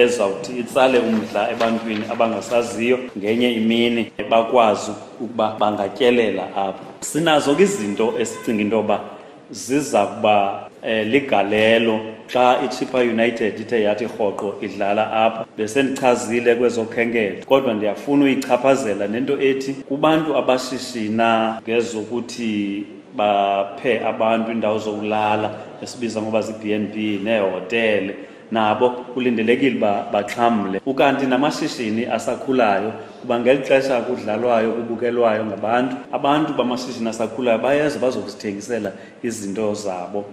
Ezawuthi itsale umdla ebantwini abangasaziyo, ngenye imini bakwazi ukuba bangatyelela apha. Sinazo ke izinto esicinga into yoba ziza kuba ligalelo xa iChippa United ithe yathi rhoqo idlala apha. Besendichazile kwezokhenketho, kodwa ndiyafuna uyichaphazela nento ethi kubantu abashishina ngezokuthi baphe abantu indawo zokulala, esibiza ngoba zii-B and B neehotele, nabo kulindelekile uba baxhamle. Ukanti namashishini asakhulayo, kuba ngeli xesha kudlalwayo, kubukelwayo ngabantu, abantu bamashishini asakhulayo bayeza bazokuzithengisela izinto zabo.